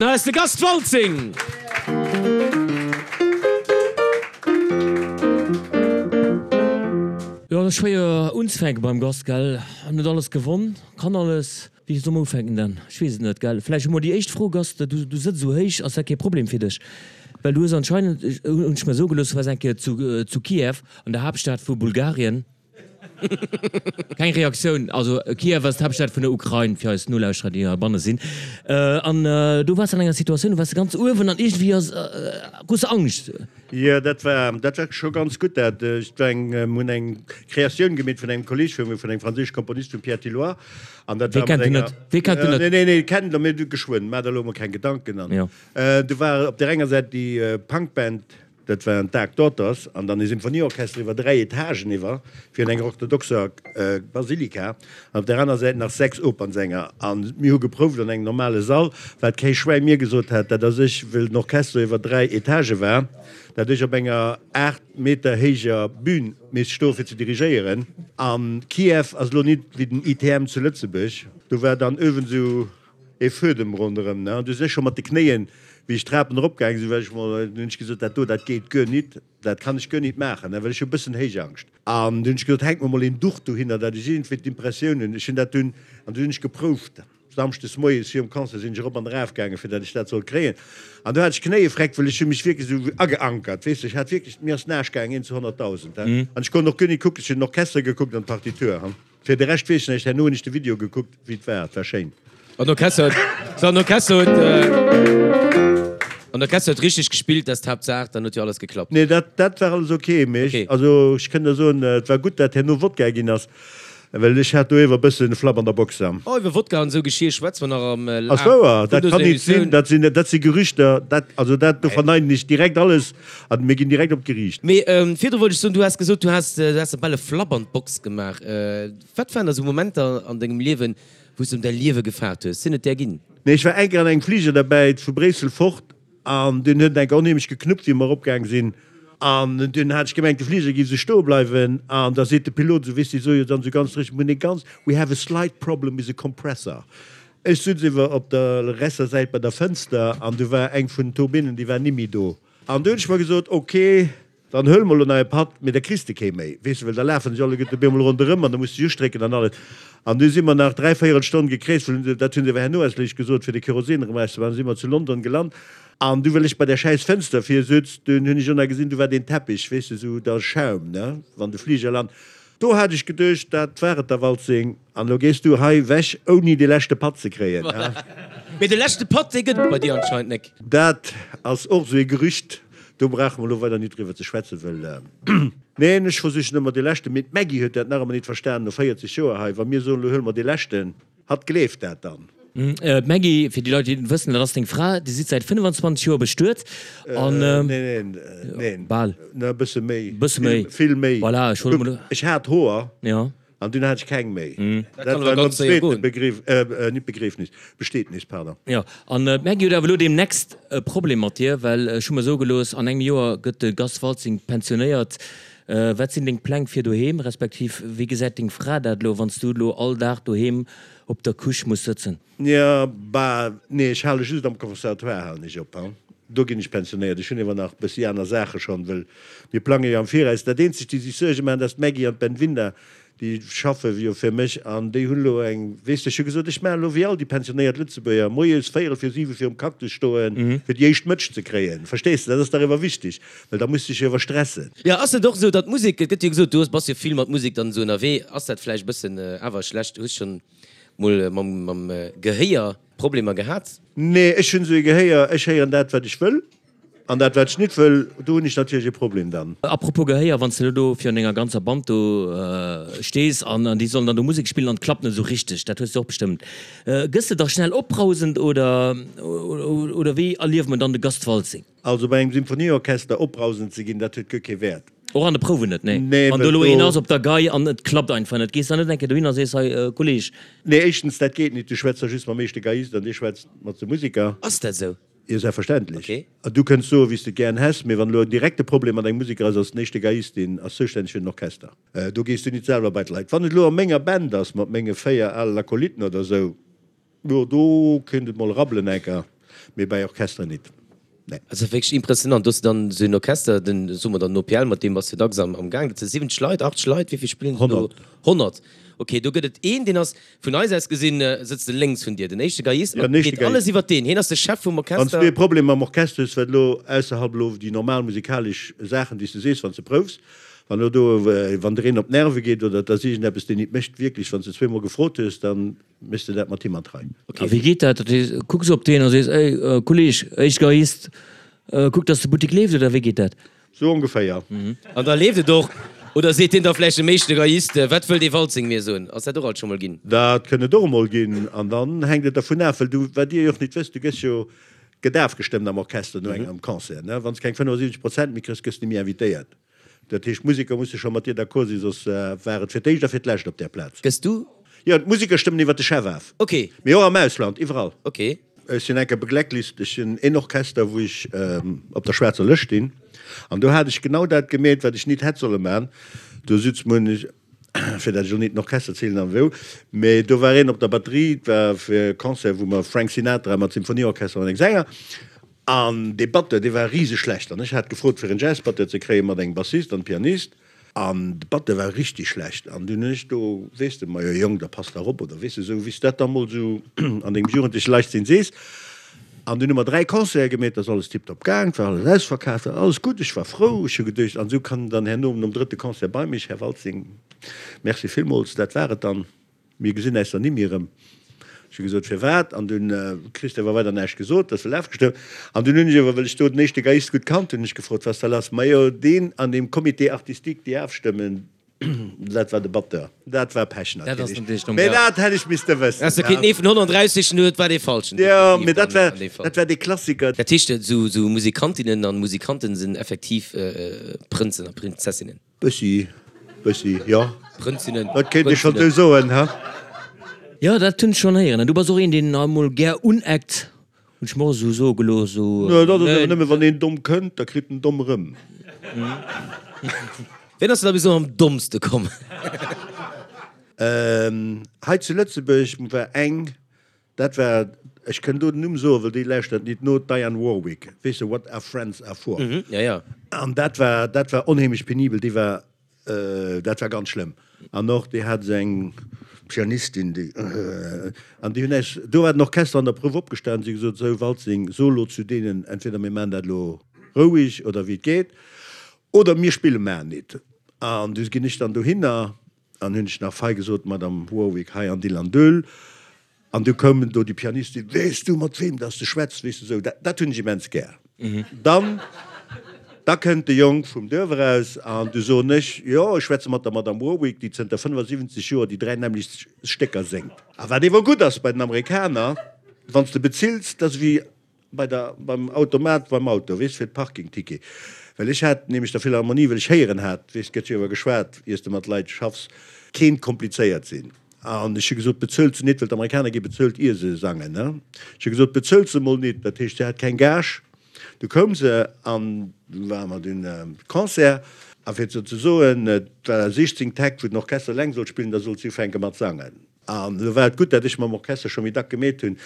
Hei ass de Gast Waltzing! Jo, et ass schwéier unzefänken beim Gast, gell? En huet alles gewonn, kann alles. Wéi soll mer ufänken dann? Ech weess et net, gell? Vläicht emol déi éischt Fro, Gast, du, du sëtz esou héich, ass dat kee Problem fir dech? Well du hues anscheinend, hunn ech mer soe gelooss, du waars eng Kéier zu, zu Kiew, an der Haaptstad vu Bulgarien. Keng Reaktioun. Also Kiew ass d'Haaptstad vun der Ukrain, fir eis Nolauschterer, déi heibanne sinn. An do waars de an enger Situatioun, do waars de ganz uewen an iergendwéi ass, krus de Angscht. Jo, dat war, dat war scho ganz gutt dat. Et war eng, mir hunn eng Kreatioun gemeet vun engem Kolleeg vu mir, vun engem franséische Komponist, vum Pierre Tilloy. An dat Wee war mat kennt en enger. net? Wee kennt en net? Nee, nee, nee, kennt der, mee du geschwënn, maach der elo emol keng Gedanken. An Jo. do war op där enger Säit déi Punkband Dat waren d'Dark Daughters an dann e Symphonieorchester iwwer 3 Etagen iwwer fir an enger orthodoxer Basilika an op der aner Säit nach 6 Opernsänger. An mir hu geprouft an engem normale Sall, wat kee Schwäi mir gesot hat, dat ass ech, wëll den Orchester iwwer 3 Etagë war, dat ech op enger 8 Meter héijer Bühn misst stoe fir ze dirigéieren. An Kiew ass elo nit wéi den ITM zu Lëtzebuerg, do war dann ëwen esou E Fuedem ronderëm, ne? An du sech scho mat de Knéien, wéi ech d'Trapen eropgaange sinn, well ech mol, dunn hunn ech gesot, dat do, dat geet guer nit, dat kann ech guer nit maachen, ne, well ech hu e bëssen Héichangscht. An dunn hunn ech gesot, hänk mer mol een Duch dohinner, dat ech iergendwéi d'Impressioun hunn, ech hunn dat dunn, an dunn hunn ech geprouft, samschdes moies virum Concert sinn ech erop an eraf gaangen, fir dat ech dat sollt kréien. An do hat ech Knéiefreck, well ech hu mech wierklech esou ageankert, weess de, ech hat wierklech, mir ass d'Naasch gaangen, een zu 100.000, he, an ech konnt och guer nit kucken, ech hunn den Orchester gekuckt an d'Partitur, he. Fir de Rescht weess ech näischt, herno hunn ech de Video gekuckt wéi et war, et war schéin. An Orchester huet, so an Orchester huet, an Orchester huet richteg gespillt, dat ass d'Haaptsaach, dann huet jo alles geklappt. Nee, dat, dat war alles ok, mee ech, also ech kënn der soen, et war gutt dat herno Wodka ginn ass, well ech hat do iewer e bëssen e Flapp an der Box. Oh, iwwer Wodka an esou Geschir schwätze mer nach am Ass Laf wouer, vun dat dëser kann nit sinn, Emissioun. dat sinn, dat si Gerüchter, dat, also dat, do verneinen ech direkt alles an mir ginn direkt op d'Geriicht. Mee virdru wollt ech soen, du has gesot, du has, du has der bal e Flapp an d'Box gemaach. Wat waren da sou Momenter an dengem Liewen, wou s de ëm däi Liewe gefaart hues? Sinn et där ginn? Nee, ech war eng Kéier an engem Fliger derbäi, vu Bréissel fort, an dunn huet en eng Kéier onheemlech geknuppt, wéi mer eropgaang sinn, an dunn hat ech gemengt, de Fliger géif esou stoe bleiwen, an da seet de Pilot esou, weess de, sou jo dann esou ganz dréchen, mir hunn e ganz, we have a slight problem with the compressor. Ech sutz iwwer op der resser Säit bei der Fënster, an du war eng vun den Turbinnen, déi war nimmi do. An du hunn ech mer gesot, ok, dann huele mer elo nach e Patt, mee da kriss de kee méi, weess de, well da lafen sech alleguerte op eemol ronderëm an da muss de sech ustrécken an alles. An du si mer nach dräivéierel Stonn gekreest, well dat hunn se awer herno eis léich gesot, fir de Kerosin erëm erauszemaachen, si mer zu London gelant. An du, well ech bei där schäiss Fënster vir sutz, dunn hunn ech och nach gesinn, du war deen Teppich, weess de, esou da Schaum, ne, wann de Fliger lant. Do hat ech geduecht, dat war et da, Waltzing. An elo gees du hei wech, ouni dee leschte Patt ze kréien, he? Mee de leschte Patt, dee gëtt et bei dir anscheinend nek. Dat ass och esou ee Gerücht, do brauche mer elo weider nit driwwer ze schwätzen, wëll, neen, ech versichen ëmmer dee leschten, mee d'Maggy huet dat nach ëmmer nit verstanen, no 40 Joer hei, wa mir soen, elo huele mer dee leschten, hatt gleeft dat dann. D'Maggy, fir déi Leit, déi et net wëssen, dat ass deng Fra, Dir sidd säit 25 Joer bestuet an. Neen, neen, neen, Bal. E bësse méi. Bësse méi. Vill méi. Voilà, ech wollt emol. Ech hat Hoer. Jo. An dunn hat ech keng méi. Dat war nom zweete Begrief, nit Begriefnis, Besteetnis, pardon. Jo, an d'Maggy huet awer elo deemnächst e Problem mat dir, well ech hu mer soe gelooss, an engem Joer gëtt de Gast Waltzing pensionéiert. Wat sinn deng Pläng fir doheem, respektiv wéi gesäit deng Fra dat elo, wann s du elo all Dag doheem op der Couche muss sëtzen? Jo, bah, nee, ech hale just am Conservatoire halen ech op, hein. Do ginn ech pensionéiert. Ech hunn ewer nach e bëssi aner Saache schonn, wëll mir plange jo am Viraus. Dat eenzegt, déi sech Suerge maachen, dat ass d'Maggy an d'Benvinda, déi schaffe jo fir mech an déi hunn elo eng, weess de, ech hu gesot, ech maachen elo wéi all déi pensionéiert Lëtzebuerger, moies véierel vir siwe virum Cactus stoen, fir déi éischt Mëtsch ze kréien. Verstees de, dat ass dach ewer wichteg, well da muss de dech jo ewer stressen. Jo, ass et och esou, datt d'Musek, et gëtt jo gesot, du hues, bass jo vill mat Musek dann esou ënnerwee, ass dat vläicht e bëssen awer schlecht, hues schonn Mol mam Gehéier Problemer gehat? Nee, ech hunn esou ee Gehéier, ech héieren dat, wat ech wëll, an dat, wat ech nit wëll, do hunn ech natierlech e Problem dann. Apropos Gehéier, wann s de elo do virun denger ganzer Band do stees an déi sollen dann do Musek spillen an et klappt net esou richteg, dat hues de och bestëmmt, gëss de da schnell opbrausend oder oder wéi erlieft mer dann de Gast Waltzing? Also bei engem Symphonieorchester opbrausend ze ginn, dat huet guer kee Wäert. Och an de Prouwen net, nee. Nee, Wann do elo een ass op der Gei an et klappt einfach net, gees dann net eng Kéier dohin a sees, hei Kolleg. Nee, éischtens, dat geet nit, du schwätz da just mam éischte Geiist an dee schwätzt mat de Musiker. Ass dat esou? Jo, selbstverständlech. Okay. An du kënns soen, wéi s de et gären häss, mee wann elo en direkte Problem mat engem Musiker ass, ass den éischte Geiist, deen ass zoustänneg fir den Orchester. Do gees du nit selwer bei d'Leit. Wann et elo a menger Band ass, mat menge 4 alen Akolyten oder esou, Jo, do kéint et mol rabbelen enker. Mee bei Orchesteren nit, nee. Dat ass wierklech impressionant. Do hues de dann esou en Orchester, den, soe mer dann den OPL, mat deem bass de dacks am am Gaang. Dat si 70 Leit, 80 Leit, wéi vill spillen do? 100. 100, ok. Do gëtt et een, deen ass, vun eis aus gesinn, sëtzt e lénks vun dir, den éischte Geiist, Ja, an den éischte geet alles Geiist. iwwert deen. Hien ass de Chef vum Wann s Orchester. du e Problem mam Orchester hues, wat elo ausserhalb elo déi normal musikalesch Saachen, déi s de sees, wann s de proufs, wann elo do, wann der een op d'Nerve geet oder et ass iergendeppes, deen nit mécht, wierklech, wann s de zweemol gefrot hues, dann Méchs de dat mat him an d'Rei? A wéi geet dat? Dat heescht, kucks op deen a sees, Ey, Kolleg, éischt Geiist, kuck, dass de Buttek leeft, oder wéi geet dat? Sou ongeféier. An da leeft et och. Oder seet deen da vläicht dem éischte Geiist, Wat wëll dee Waltzing mir soen? Ass dat och alt scho mol ginn? Dat kënn et och emol ginn. An dann hänkt et dervun af, well du, wat dir jo och nit wësst, du gëss jo gëtt afgestëmmt am Orchester no engem Concert, ne? Wann s keng 75 Prozent méi kriss, gëss de méi invitéiert. Dat heescht, d'Museker musse scho mat dir d'accord sinn, soss war et fir d'éischt a fir d'lescht op där Plaz. Gëss du? Jo, d'Museker stëmmen iwwer de Chef af. Ok. Mee och am Ausland, iwwerall. Ok. Ech sinn enker beglacklist, ech sinn een Orchester, wou ech op der schwaarzer Lëscht stinn, an do hat ech genau dat gemeet, wat ech nit hätt solle man. Do sutz mer, hunn ech, fir dat ech elo nit den Orchester zielen an wou, mee do war een op der Batterie, et war fir e Concert, wou mer Frank Sinatra mat Symphonieorchester an engem Sänger, An dee Batteur, dee war riseschlecht. An ech hat gefrot, fir en Jazzbatteur ze kréien, mat engem Bassist an Pianist. An de Batteur war richtig schlecht. An dunn hunn ech do, weess de, majo Jong, da pass dach op, oder weess de, esou wéi s de dat da mol esou an dengem jugendleche Leichtsinn sees. An dunn hu mer 3 Concerte gemeet, ass alles tiptop gaang, et war alles ausverkaaft, war alles gutt, ech war frou. Ech hu geduecht, an esou kann dann herno nom drëtte Concert bei mech, Här Waltzing, merci villmools, dat war et dann. Mir gesinn äis dann nimmi erëm. Ech hu gesot, Firwat? An dunn kriss de awer weider näischt gesot, ass well afgestëmmt. An dunn hunn ech awer, well ech do den éischte Geiist gutt kannt hunn, ech gefrot, Was da lass? Majo, deen an deem Comité artistique, déi afstëmmen, dat war de Batteur. Dat war Pech natierlech. Mee dat hätt ech misste wëssen. Häss de kéinten ee vun 130 hunn, et war dee falschen. Jo, mee dat war, dat war dee Klassiker. Dat heescht, esou Musikantinnen an Musikanten sinn effektiv Prënzen a Prinzessinnen? Bëssi, bëssi, jo. Prënzinnen, Dat kéint ee schonn esou soen, ha? Jo, dat hunn ech schonn héieren. An du bass och een, deen emol gär uneckt, hunn ech mer och esou soe gelooss. Esou, Nö, dat ass awer nëmme wann een domm kënnt, da kritt en domm erëm. Ween ass der da bis elo am dommste komm? Hei zu Lëtzebuerg war eng, Dat war, ech kënn do den Numm soen, well déi lauschtert nit no, d'Diane Warwick, weess de, What are friends are for. Ja, ja. An dat war, dat war onheemlech penibel, déi war, dat war ganz schlëmm. An och déi hat esou eng Pianistin, déi, an déi hunn äis, do war den Orchester an der Prouf opgestan, si hu gesot, Sou Waltzing, so elo zu deenen, entweder mir maachen dat elo roueg oder wéi et geet, oder mir spille mar nit. An du ginn ech dann dohinner An hunn ech nach fei gesot, Madame Warwick, hei an Dill an Döl. An du koum do déi Pianistin, Weess du, mat weem dass de schwätz? Weess de, sou, dat, dat hunn ech immens gär. Dann, da kënnt de Jong vum Duerf eraus an du soen ech, Jo, ech schwätze mat der Madame Warwick, déi zënter 75 Joer déi dräi nämmlecht Stécker séngt. A wat ewer gutt ass bei den Amerikaner, wann s de bezills, dat ass ewéi Bei der, beim Automat beim Auto, weess, fir d'Parkingticket. Well ech hat nämlech der Philharmonie, well ech héieren hat, weess, gëtt jo iwwer geschwat, iers de mat Leit schaffs, kéint komplizéiert sinn. An ech hu gesot, bezuelt se nit, well d'Amerikaner gi bezuelt ier se sangen, ne. Ech hu gesot, bezuelt se mol nit, dat heescht, se hat keng Gage. Du koum se an du ware mer dunn Concert. A fir ze soen, et war 16 Täkt, wou den Orchester eleng sollt spillen, da sollt si ufänke mat sangen. An elo war et gutt, dat ech mam Orchester scho méi dack gemeet hunn,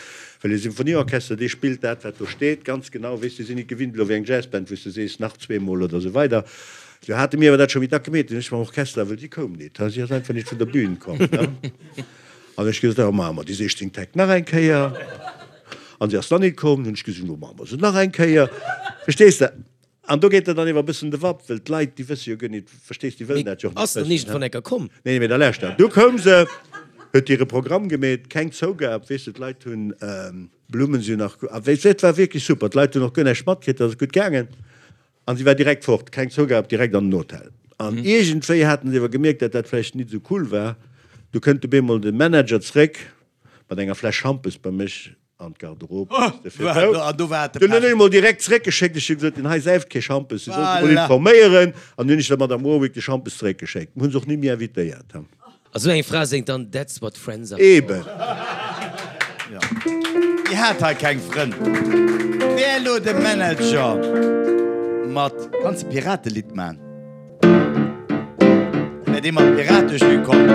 well e Symphonieorchester, dee spillt dat, wat do steet, ganz genau. Weess, déi sinn nit gewinnt elo wéi eng Jazzband, wou s de sees, nach zweemol oder esou weider. Do hate mir awer dat scho méi dack gemeet. Dunn ech mam Orchester, well si koum nit, si ass einfach nit vun der Bühn komm. An ech gesot, da maache mer déi 16 Täkt nach eng Kéier. An si ass dann nit komm. Dunn hunn ech gesot, lo maache mer se nach eng Kéier. Verstees de? An do geet der dann ewer e bëssen de Wapp, well d'Leit, déi wësse jo guer nit, verstees, déi wëllen dat jo och nit Ass dann wëssen. iergendwann enker komm? Nee, mee da lauschter, du koum se, huet hire Programm gemeet, keng Zougab, weess de, d'Leit hunn Blummen, si hunn nach, a weess, et war wierklech super, d'Leit hunn och guer näischt matkritt, dat ass gutt gaangen. An si war direkt fort, keng Zougab, direkt an den Hotel. An iergendwéi haten se ewer gemierkt, dat dat vläicht nit esou cool war. Du kënnt op eemol de Manager zréck mat enger Fläsch Schampes bei mech, An d'Garderobe musste fir d'Ou. Dunn hunn ech emol direkt zeréckgeschéckt. Ech hu gesot, deen hei säift kee Schampes, si soll sech emol informéieren. An dunn hunn ech der Madame Warwick de Schampes zeréckgeschéckt. Mir hu se och ni méi invitéiert. A sou eng Fra séngt dann That's what friends are for. Eben. Déi hat hei keng Frënn. Wär elo de Manager mat. Kanns de Piratelidd man? Wär dee mat Piratejus komm?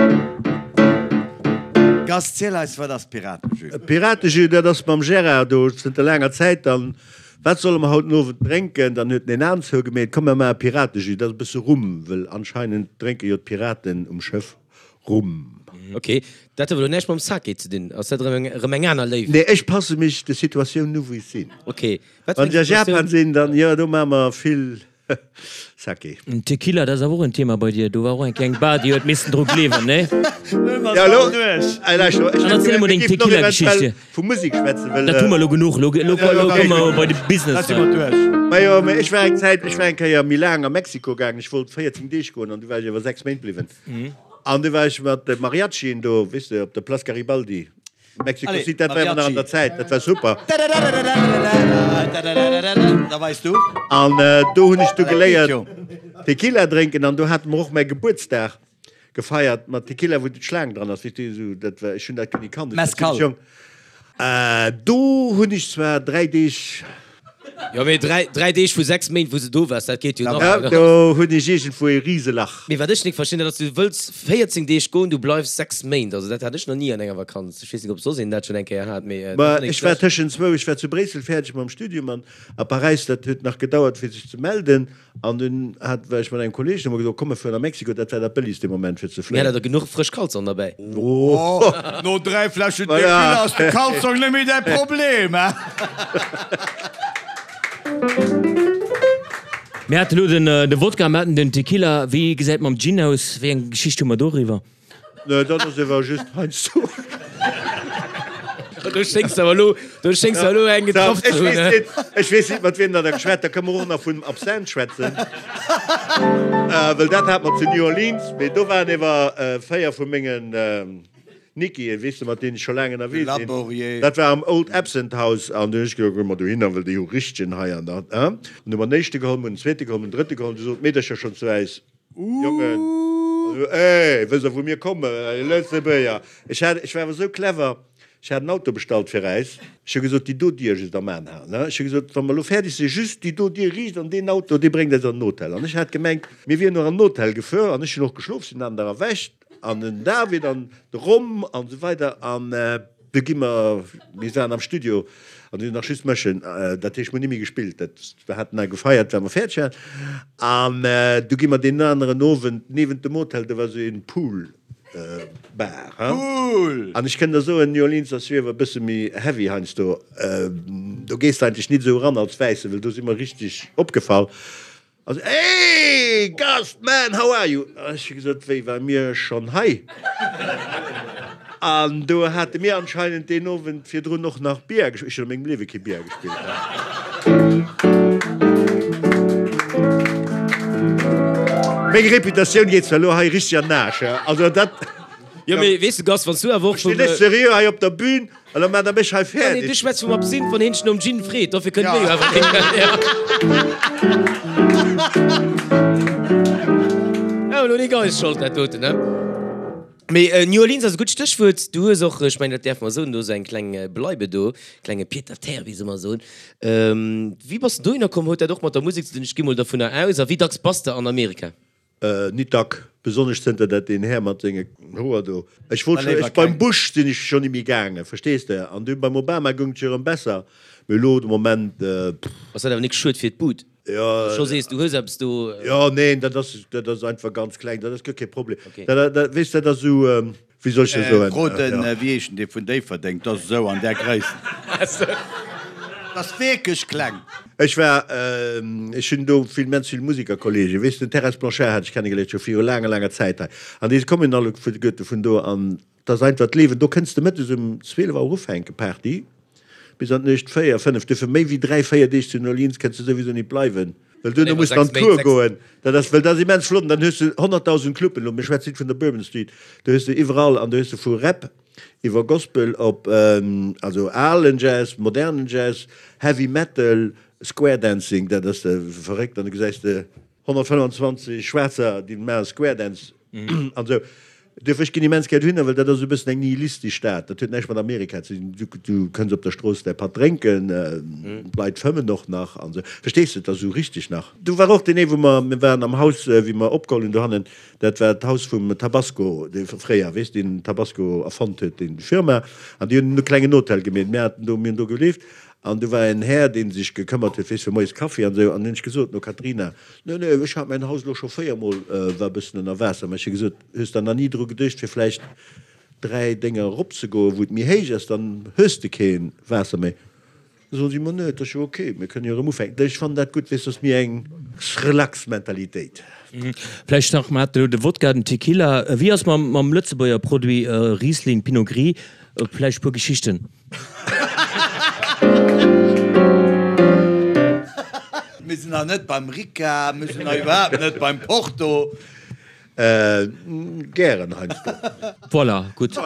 Gast, ziel eis, wat ass Piratejus? Piratejus, dat ass mam Gérard do zënter laanger Zäit. Dann, wat solle mer haut den Owend drénken? Dann huet en een Aen zougemeet, komm mer maache Piratejus, dat ass e bësse Rum, wëll anscheinend drénke jo d'Piraten um Schëff Rum. Ok, dat huet awer elo näischt mam Sake ze dinn. Ass dat erëm erëm eng aner Léift? Nee, ech passe mech de Situatiounen u wou ech sinn. Ok, wat fir Wann eng ech a Situatioun? Japan sinn, dann jo, do maache mer vill Sake. Tequila, dat ass awer och en Thema bei dir. Do war och eng kleng Bar, déi huet missen dru gleewen, nee? Ja, elo, ey, lauscht elo, ech Dann erziel emol deng mir géifen och Tequila-Geschicht eventuell hier. vu Musek schwätzen, well. Dat hu mer elo genuch. Elo, elo, elo komme mer bei de Business Da si mer hei. duerch. Majo, mä ech war eng Zäit, ech war eng Kéier méi laang a Mexiko gaangen. Ech wollt 14 Deeg goen an du war ech awer 6 Méint bliwwen. An du war ech mat de Mariachien do, weess de, op der Place Garibaldi. Mexico Allez, City, dat war awer nach an der Zäit, dat war super. Da weis du. An do hunn ech du geléiert Tequila drénken an do hate mer och mäi Gebuertsdag gefeiert mat Tequila wou d'Schlaang dran ass, weess du, esou dat war, ech hunn dat guer ni kannt, ech war Mezcal. zimmlech jonk. Do hunn ech zwar 3 Deeg. Jo, mee 3 Deeg vu 6 Méint, wou s de do waars, dat geet jo nach. Ja, do hunn ech iergendwou ee Riselach. Mee wat ech nik verstinn, dat ass, du wëlls 14 Deeg goen, du bleifs 6 Méint. Also dat hat ech nach ni an enger Vakanz. Ech weess nik, ob soss een dat schonn eng Kéier hat, mee dat Ma fannen ech ech war schlecht. tëschent zwou, ech war zu Bréissel fäerdeg mam Studium an a Paräis, dat huet nach gedauert fir sech ze melden. An dunn hat, war ech mat engem Kolleeg, hu mer gesot, komm mer fueren a Mexiko, dat war dat bëllegst dee Moment fir ze Mir fléien. hat der genuch frësch Kalzong derbäi. Oh, no 3 Fläschen Tequila ass de Kalzong net méi däi Problem, he? Mir haten elo den de Wodka, mir haten den Tequila. Wéi gesäit et mam Gin aus? Wéi eng Geschicht hu mer doriwwer? Nee, dat ass ewer just heiansdo. Do schéngs de awer elo, do schéngs de elo eng getraff ze Ech hunn, weess he? net, ech weess net, mat wiem der da geschwat. Da kënne mer och nach vun Absinthe schwätzen, well dat hat mer zu New Orleans. Mee do waren ewer 4 vu mengen Nickien, weess de, mat deenen ech scho laang ënnerwee sinn. Laborier. Dat war am Old Absinthe House an du hunn ech gesot, goe mer dohinner, well déi hu richtegen hei an dat, he. An du hu mer den éischte geholl, mer hunn den zweete geholl, mer hunn den drëtte geholl. Du sot d'Meedercher schonn zu äis, Jongen, ey, wësst der wou mir kommen? Lëtzebuerger. Ech hat, ech war awer esou clever, ech hat en Auto bestallt fir äis. Ech hu gesot, déi do Dier just am An halen, ne? Ech hu gesot, wa mer elo fäerdeg sinn, just déi do Dier riicht an deen Auto, dee bréngt äis an den Hotel. An ech hat gemengt, mir wieren och an den Hotel gefuer an ech hunn och geschlof, sinn an der erwächt an den David an de Rom an esou weider an du gi mer, mir waren am Studio an hunn nach just mëschen, dat heescht mir hunn ni méi gespillt, dat, wir haten da gefeiert well mer fäerdeg waren an du gi mer deen aneren Owend niewent dem Hotel, do war esou een Pool Bar, Pool! An ech kënn der soen, New Orleans ass jo ewer e bësse méi heavy heiansdo, do gees de eigentlech nit esou eran als Wäissen, well do si mer richteg opgefall. Also, Hey, Gast, man, how are you? Ech hu gesot, Wéi, ware mir schonn hei? An do hate mir anscheinend deen Owend virdrun och nach Billard gespillt. Ech hunn a mengem Liewe kee Billard gespillt. Meng Reputatioun geet zwar elo hei richteg an den Aarsch, also dat. Jo, mee weess de, Gast, wann s du awer och Ech vum. stinn net seriö hei op der Bühn. An da maacht der mech hei fäerdeg. Nee, du schwätz vum Absinth, wann heen dech nom Gin freet. Dofir kënnt mir jo awer keen. Ja, elo nik eis Schold, dat doten, ne? Mee New Orleans ass e gutt Stéchwuert. Du hues och, ech mengen, dat däerfe mer soen, do esou eng kleng Bleibe do, klenge Pied-à-terre, wéi se ëmmer soen. Wéi bass de dohinner komm? Huet dat och mat der Musek ze dinn? Ech gi mol dovunner aus. A wéi dacks bass de an Amerika? Nit dack, besonnesch zënter dat deen Här mat senge Hoer do, ech wollt scho, ech beim Bush sinn ech scho nimmi gaangen, verstees de, an dunn beim Obama goung et jo erëm besser, mee elo de Moment, pff. Ass dat awer nik schued fir d'Bud, Jo. scho sees du hues eppes do? Jo, neen, dat ass, dat ass einfach ganz kleng, dat ass guer kee Problem, dat, dat, weess dat ass esou, Wéi soll ech dat soen? Fro den, wéi heescht en, dee vun Déifferdeng, dat ass esou an där Gréisst. Dat ass wierklech kleng. Ech war, ech hunn do vill, immens vill Musikerkollegen, weess de, den Terres Blanchard hat ech kennegeléiert, scho viru laanger, laanger Zäit hei. An déi kommen alleguerte vun do an et ass einfach d'Liewen. Do kënns de mëttes um 12 Auer ufänken, Party. Bis an d'Nuecht 4, 5, duerfir méi wéi 3, 4 Deeg zu New Orleans kënns de souwisou nit bleiwen, well duerno muss de an d'Cour goen. Dat ass, well dat ass immens flott an dann hues de 100.000 Cluben, elo mir schwätzen nit vun der Bourbon Street, do hues de iwwerall an do hues de vu Rap iwwer Gospel op, also alen Jazz, modernen Jazz, Heavy Metal, Square Dancing, dat ass verréckt an du gesäis de 125 Schwaarzer, déi maache Square Dance an esou. Duerfir, ech ginn immens gär dohinner, well dat ass esou e bëssen eng nihilistesch Stad. Dat huet näischt mat Amerika ze dinn. Du, du kënns op der Strooss däi Patt drénken, d'Leit fëmmen och nach an esou. Verstees de, et ass esou richteg nach. Do war och deen ee, wou mer, mir waren am Haus, wéi mer opgeholl hunn dohannen, dat war d'Haus vum Tabasco, dee fréier, weess, deen Tabasco erfonnt huet, déi Firma. An déi hunn e klengen Hotel gemeet. Mir haten do, mir hunn do gelieft. An do war en Här, dee sech gekëmmert huet, weess, fir moies Kaffi an esou. An hunn ech gesot, no Katrina, Nee, nee, ech hat mäin Haus elo scho véiermol, war e bëssen ënner Waasser. Mä ech hu gesot, Hues der nach ni dru geduecht, fir vläicht 3 Dénger eropzegoen, wou et méi héich ass, dann hues de kee Waasser méi. Da soen si, Ma nee, et ass jo ok, mir kënnen jo erëm ufänken. Ech fannen dat gutt, weess, dat ass méi eng relax Mentalitéit. Vläicht nach, mer haten elo de Wodka, den Tequila. Wéi ass mam, mam Lëtzebuerger Produit Riesling, Pinot Gris? Vläicht e puer Geschichten? Mir sinn nach net beim Ricard, mir sinn nach iwwerhaapt net beim Porto. Gären heiansdo. Voilà, gutt.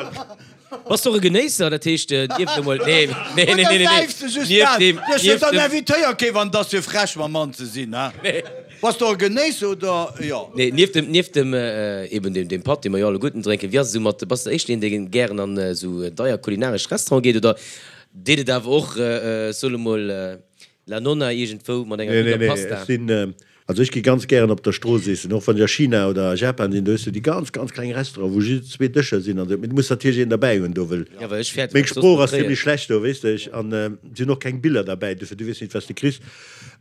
Bass de och e Genéisser? Dat heescht, nieft emol, nee, nee, nee, nee, nee, nieft deem, nieft dem. Dann invitéier kee wann et ass fir frech mam Mann ze sinn, he? Bass de och e Genéisser oder jo? Nee, nieft dem, nieft dem, eben deem, deem Patt, dee mer jo alleguerten drénken, wéi ass et esou mat, bass de éischter een, dee gären an esou deier kulinaresch Restaurante geet oder deet et awer och, ech soe lo mol, La Nonna iergendwou mat enger gudder Pasta? Nee, nee, nee, ech sinn, also ech gi ganz gären op der Strooss eessen, och wann ech a China oder a Japan sinn, do hues du déi ganz, ganz kleng Restauranten, wou just zwee Dëscher sinn an esou, mee du muss natierlech een derbäi hunn do, wëll Ja, well ech fäerten, meng wat soss Sprooch nach ass kréien. zimmlech schlecht do, weess de, ech, an et sinn och keng Biller derbäi, dofir du weess nit, wat s de kriss.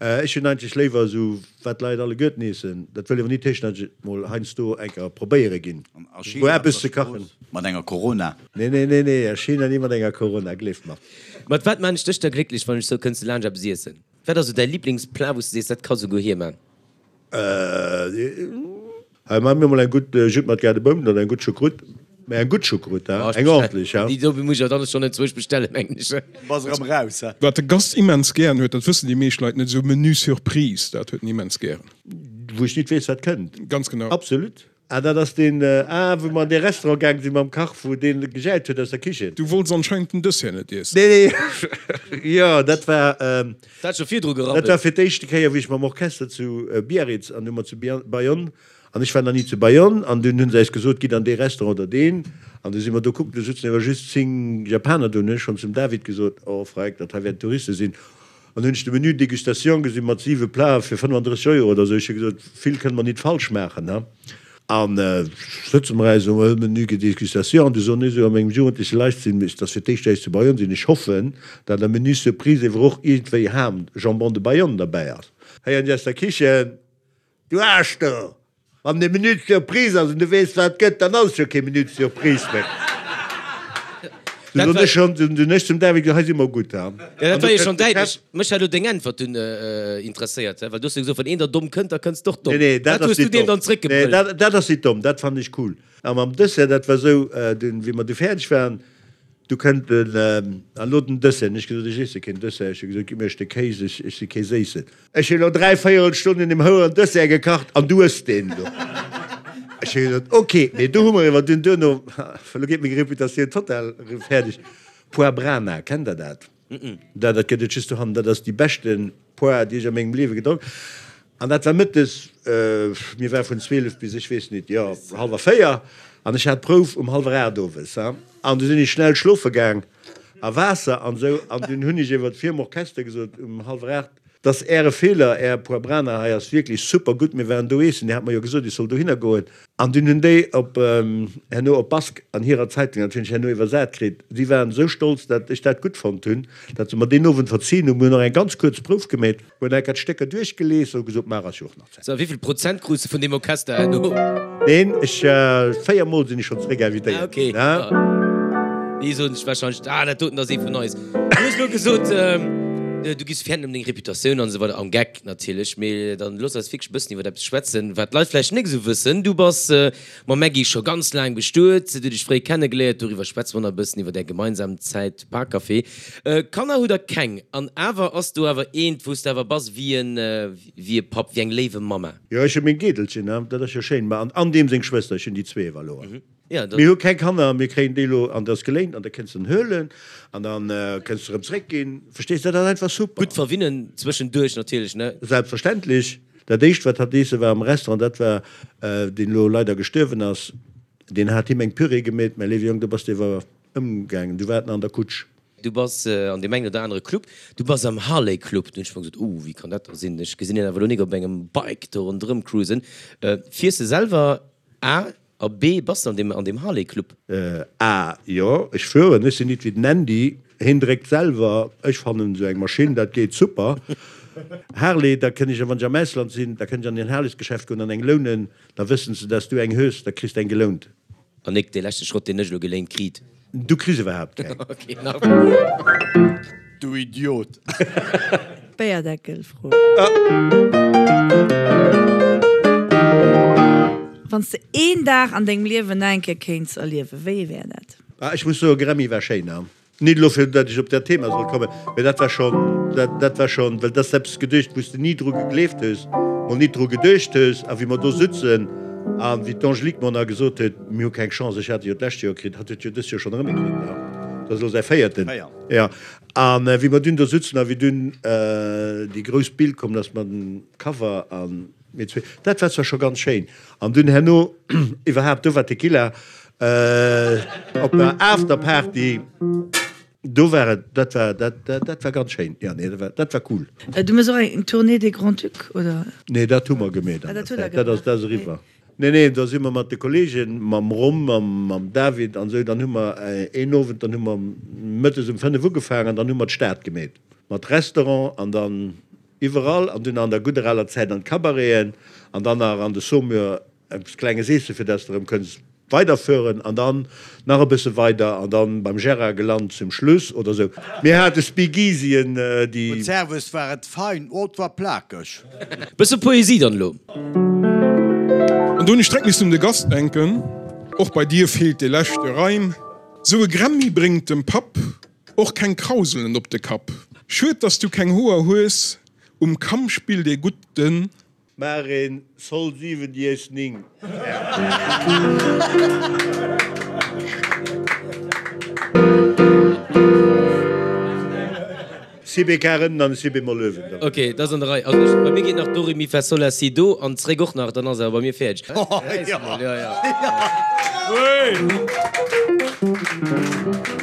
Ech hunn eigentlech léiwer esou, wat d'Leit alleguerten eessen, dat wëll awer nit heeschen, datt ech et mol heiansdo eng Kéier probéiere ginn, A wou China op eppes der ze kachen. Strooss mat enger Corona. Nee, nee, nee, nee, a China ni mat enger Corona, gleeft mer. Mat wat maan ech dech da glécklech, wann ech sou kënns du laanscht eppes iessen? Wat ass sou däi Lieblingsplat, wou s du sees, dat ka souguer hie maan? Hei maan mir mol eng gutt Judd mat Gaardebounen oder eng gutt Choucroute. Mä eng gutt Choucroute, ha, eng ordentlech, ha. Déi do muss ech awer dann schonn enzwousch bestellen, mengen ech. Bass erëm raus, ha. Wat de Gast immens gären huet, dat wëssen déi meescht Leit net, esou Menu Surprise, dat huet en immens gären. Wou ech nit weess, wat kënnt. Ganz genau. Absolut. Ah, dat ass deen, ah, wou mer an dee Restaurant gaang sinn mam Kach, wou deen gejäit huet aus der Kichen. Du wollts anscheinend den Dessert net iessen. Nee, nee, jo, dat war, Dat hat scho virdru gerabbelt. dat war fir d'éischte Kéier, wéi ech mam Orchester zu Biarritz, an du mer zu Bayonne, an ech war nach ni zu Bayonne, an dunn hu se eis gesot, gitt an dee Restaurant oder deen, an du si mer do kucken, do sutzen awer just 10 Japaner do, hunn ech schonn zum David gesot, oh freck, dat hei wäerten Touriste sinn. An hunn ech de Menu Dégustation gesinn mat 7 Platen fir 35 Euro oder esou. Ech hu gesot, vill kënne mer nit falsch maachen, he. An sëtze mer eis um Menu Dégustation an du soen ech esou a mengem jugendleche Leichtsinn, et ass fir d'éischt, datt ech zu Bayonne sinn, ech hoffen, datt am Menu Surprise ewer och iergendwéi Ham, Jambon de Bayonne derbäi ass. Héieren ech aus der Kichen, Du Aarsch do! Wann et Menu Surprise ass an du weess wat et gëtt, dann ass et jo kee Menu Surprise méi. Du hunn ech schonn, du hunn ech zum David gesot, hei si mer gutt, ha. Jo, dat war jo schonn däitlech. Mech hat elo deng Äntwert dunn interesséiert, well du hues jo gesot, wann een der domm kënnt, da kënns de och domm. Nee, nee, dat Wat ass hues du nit deem domm. dann Nee, zréckgebrüllt? dat, dat ass nit domm, dat fannen ech cool. A mam Dessert, dat war esou, dunn, wéi mer du fäerdeg waren, du kënnt den, an elo den Dessert. Hunn ech gesot, ech iesse keen Dessert. Ech hu gesot, gitt mir e Stéck Kéis, ech, ech si kee Séissen. Ech hunn elo 3 véierel Stonn un deem houeren Dessert gekacht an du ëss deen elo. Ech hu gesot, ok, mee do hu mer iwwer dunn duerno, elo geet meng Reputatioun total fäerdeg, Poire Brana, kennt der dat? Dat dat gëtt et just dohannen, dat ass déi beschte Poire, déi ech a mengem Liewe gedronk. An dat war mëttes, mir war vun 12 bis ech weess nit, jo, hallwer 4 an ech hat d'Prouf um hallwer 8 owes, an du sinn ech schnell schlofe gaang. A Waasser an esou. An dunn hunn ech iwwer virum Orchester gesot um hallwer 8, Dass Äre Feeler, Är Poibrana hei ass wierklech super gutt, mir waren do eessen, Dir hat mer jo gesot, ech soll dohinner goen. An dunn hunn déi op herno op Bask an hirer Zeitung natierlech herno iwwersat kritt, si waren esou stolz, dat ech dat gutt fonnt hunn, dat se mer deen Owend verzien hunn. Mir hunn och eng ganz kuerz Prouf gemeet, hunn enker d'Stécker duerchgelies a hu gesot, Maach ass jo och nach Zäit. So, a wéivill Prozent krus de vun deem Orchester herno? Neen, ech, 4 mol sinn ech schonn zeréck invitéiert Ah, okay. ginn, ha. Déi soen sech wahrscheinlech, Ah, dat doten ass ee vun eis. Du hues elo gesot, du giffs fäerten ëm deng Reputatioun an esou weider, am Geck natierlech, mee dann looss eis wierklech e bëssen iwwer eppes schwätzen, wat d'Leit vläicht net esou wëssen. Du bass mam Maggy scho ganz laang bestuet, hutt iech fréi kennegeléiert, doriwwer schwätze mer nach e bëssen, iwwer är gemeinsam Zäit Parkcafé. Kanner hutt der keng, an awer ass do awer eent, wou s de awer bass wéi en, wéi e Papp, wéi eng léiwe Mamma. Jo, ech hu meng Geedelchen, dat ass jo schéin, ma an deem seng Schwëster, ech hunn déi zwee ewer elo. Ja, Mir hu keng Kanner, mir kréien déi elo an dat ass geléint an da kënns de en huelen an da kënns de erëm zréckginn. Verstees de, dat ass einfach super. Gutt verwinnen zwëschenduerch natierlech, ne? Selbstverständlech. Dat éischt wat hatt eesse war am Restaurant, dat war, deen elo leider gestuerwen ass. Deen hat him eng Püree gemeet, Mäi léiwe Jong, do bass de ewer ëmgaangen, du waart nach an der Kutsch. Du bass an deem engen oder anere Club, du bass am Harley Club. Du hunn ech mer gesot, oh, wéi kann dat da sinn? Ech gesinn hien awer elo nik op engem Bike do ronderëm cruisen. Fiers de selwer A? A B, bass de an deem, an deem Harley Club? A, Jo, ech fueren. Ech sinn nit wéi den Andy, hien dréckt selwer. Ech fannen esou eng Maschinn, dat geet super. Harley, da kënn ech, wann ech am Ausland sinn, da kënn ech an en Harleysgeschäft goen an eng lounen. Da wëssen se, dass du eng hues, da kriss de eng gelount. An nik dee leschte Schrott, deen ech elo geléint kriit. Du kriss iwwerhaapt keng. Ok, nach. Du Idiot! Béierdeckelfro. Wann s de een Dag an dengem Liewen nach eng Kéier kéints erliewen, wéi ee wär dat? Ah, ech muss soen, Grammy war schéin, ne? Nit elo fir datt ech op dat Thema soll kommen, mä dat war schonn, dat, dat war schonn, well dat ass eppes geduecht, wou s de ni dru gegleeft hues, mol nit dru geduecht hues. A wéi mer do sutzen a wéi d'Angélique mer nach gesot huet, mir hu keng Chance, ech hat e jo d'lescht Joer kritt, hatt huet jo dëst Joer schonn erëm ee kritt, ne? Dat ass elo säi véierten. Jo. A wéi mer dunn do sutzen a wéi dunn déi grouss Bild komm ass mat dem Cover a mir zwee, dat war zwar scho ganz schéin. An dunn herno iwwerhaapt, do war Tequila op der Afterparty, do war et, dat war, dat, dat war ganz schéin. Jo, nee, dat war, dat war cool. Du méchs och eng Tournée des Grands-Ducs, oder? Nee, dat hu mer gemeet an der Zäit, dat ass, dat ass eriwwer. Nee, nee, da si mer mat de Kollegen, mam Rom, mam, mam David an esou, dann hu mer een Owend, dann hu mer mëttes um 5 ugefaangen an dann hu mer d'Stad gemeet mat Restaurant an dann Iwwerall, an dunn an der gudder aler Zäit an d'Cabareten an dann nach an de Saumur eppes Klenges eessen, fir dass de erëm kënns weiderfueren an dann nach e bësse weider an dann beim Gérard gelant zum Schluss oder sou. Mir hate Speakeasyen, déi. Gutt Servus, war et fein, oh et war plakeg. Bësse Poesie dann elo. An do hunn ech direkt missen un de Gast denken, Och bei dir feelt dee leschte Reim. Sou e Grammy bréngt dem Papp Och keng Krauselen op de Kapp. Schued dass du keng Hoer hues, um Kamm spillt ee gutt den. Maach een Sol 7 Dies 9. Si B-Kar ënnen an e Si B-Moll uewen dann. Ok, dat ass an der Rei. Also ech, bei mir geet nach Do Ré Mi Fa Sol La Si Do an zréck och nach, dann ass awer bei mir fäerdeg.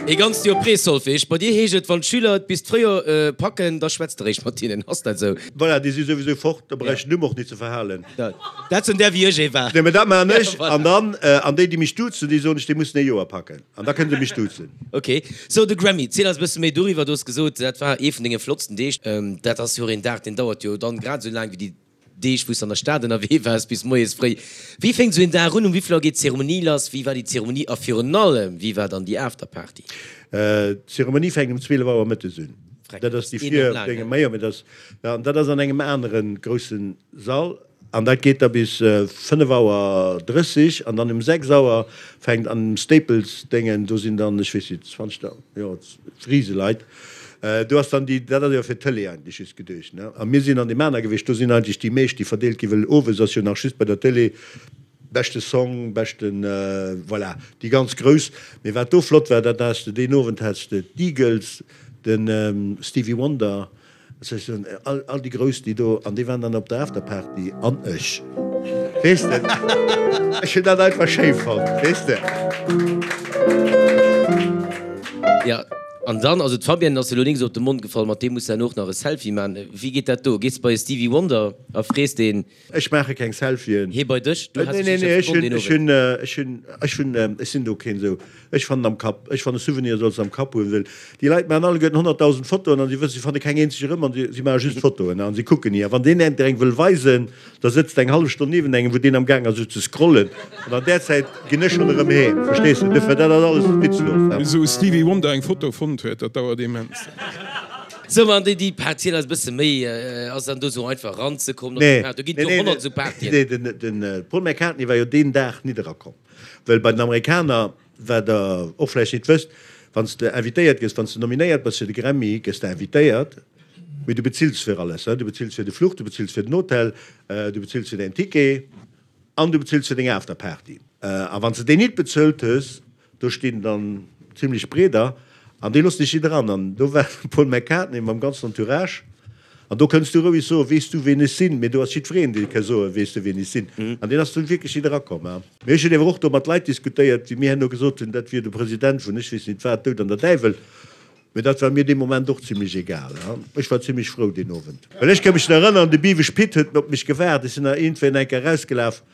Ee ganzt Joer Pré-Solfège. Bei dir heescht et, wann d'Schüler et bis d'Fréijoer packen, da schwätzt de réischt mat hinnen. Ass dat esou? Voilà, déi si souwisou fort, da brauch ech den Numm och nit ze verhalen. Dat sinn där wéi ech ee war. Nee, mä dat maachen ech. An dann, an déi, déi mech duzen, déi soen ech, déi mussen ee Joer packen. An da kënne se mech duzen. Ok, sou de Grammy, ziel eis e bësse méi doriwwer. Du hues gesot, dat war ee vun denge flottsten Deeg. Dat ass jo och een Dag, deen dauert jo dann grad esou laang wéi déi Deeg, wou s de an der Stad ënnerwee waars, bis moies fréi. Wéi fänkt esou een Dag un? Um wéi vill Auer geet d'Zeremonie lass? Wéi war déi Zeremonie a virun allem, wéi war dann déi Afterparty? D'Zeremonie fänkt um 12 Auer mëttes un. Dat ass déi vir dengem, majo, mee dat ass, an dat ass an engem anere grousse Sall. An dat geet da bis 5 Auer 30 an dann um 6 Auer fänkt an dem Staples Déngen, do sinn dann, ech weess nit, 20, jo, Riseleit. Do ass dann déi, dat ass jo fir d'Tëlee eigentlech just geduecht, ne? A mir sinn an deem aner gewiescht, do sinn eigentlech déi meescht, déi verdeelt ginn, well owes ass jo nach just bei der Tëlee beschte Song, beschten, voilà, déi ganz grouss. Mee wat do flott war, dat has de deen Owend has de d'Eagles, de Stevie Wonder, Ech soen, all, all déi Grouss, déi do, an déi waren dann op der Afterparty, an ech, weess de, ech hunn dat einfach schéi fonnt, weess de. Jo, an dann, also d'Fabienne ass elo nik esou op de Mond gefall, mat deem muss de herno och nach e Selfie man. Wéi geet dat do? Gees de bei e Stevie Wonder a frees deen? Ech maache keng Selfien. Hee bei dech? Du has dech sécher verbonnen deen Owend. Nee, nee, ech hunn, ech hunn, ech hunn, ech sinn do keen esou. Ech fannen am Kapp, ech fanne Souvenir solls de am Kapp hunn, well déi Leit maachen alleguerten 100.000 Fotoen an si wëssen, si fanne keng eenzeg erëm an si maache just Fotoen an si kucken ni. A wann deen der eng wëll weisen, da sëtzt eng hallef Stonn niewent engem, wou deen am gaang ass esou ze scrollen an an där Zäit ginn ech schonn erëm heem, verstees de? Duerfir, dat ass alles witzlos. Bis esou e Stevie Wonder eng Foto fonnt huet, dat dauert immens. Sou, an déi, déi Par, ziel eis e bësse méi, ass dann do sou einfach eranzekommen op déi Party? Do ginn et jo 100 esou Partyen. Nee, den, den Paul McCartney war jo deen Dag nit erakomm, well bei den Amerikaner, wat der och vläicht nit wësst, wann s de invitéiert gëss, wann s de nominéiert bass fir de Grammy, gëss de invitéiert, mee du bezills fir alles, du bezills fir de Fluch, du bezills fir den Hotel, du bezills fir däin Ticket an du bezills fir deng Afterparty. A wann s de déi nit bezuelt hues, Do stinn dann zimlech Breeder an déi loossen dech nit eran. An do war de Paul McCartney mam ganzen Entourage. An do kënns du roueg soen, Weess du, ween ech sinn? Mee do ass jiddwereen, dee ka soen, Weess du, ween ech sinn? An deen ass dunn wierklech nit erakomm. Mee ech hunn ewer och do mat Leit diskutéiert, déi mir herno gesot hunn, dat wier de President vun ech weess nit wat, Doud an der Däiwel. Mee dat war mir dee Moment och zimlech egal. Ech war zimlech frou deen Owend. Well ech ka mech nach erënneren, de Biwesch Pit huet op mech gewaart. Ech sinn nach iergendwéi eng Kéier erausgelaf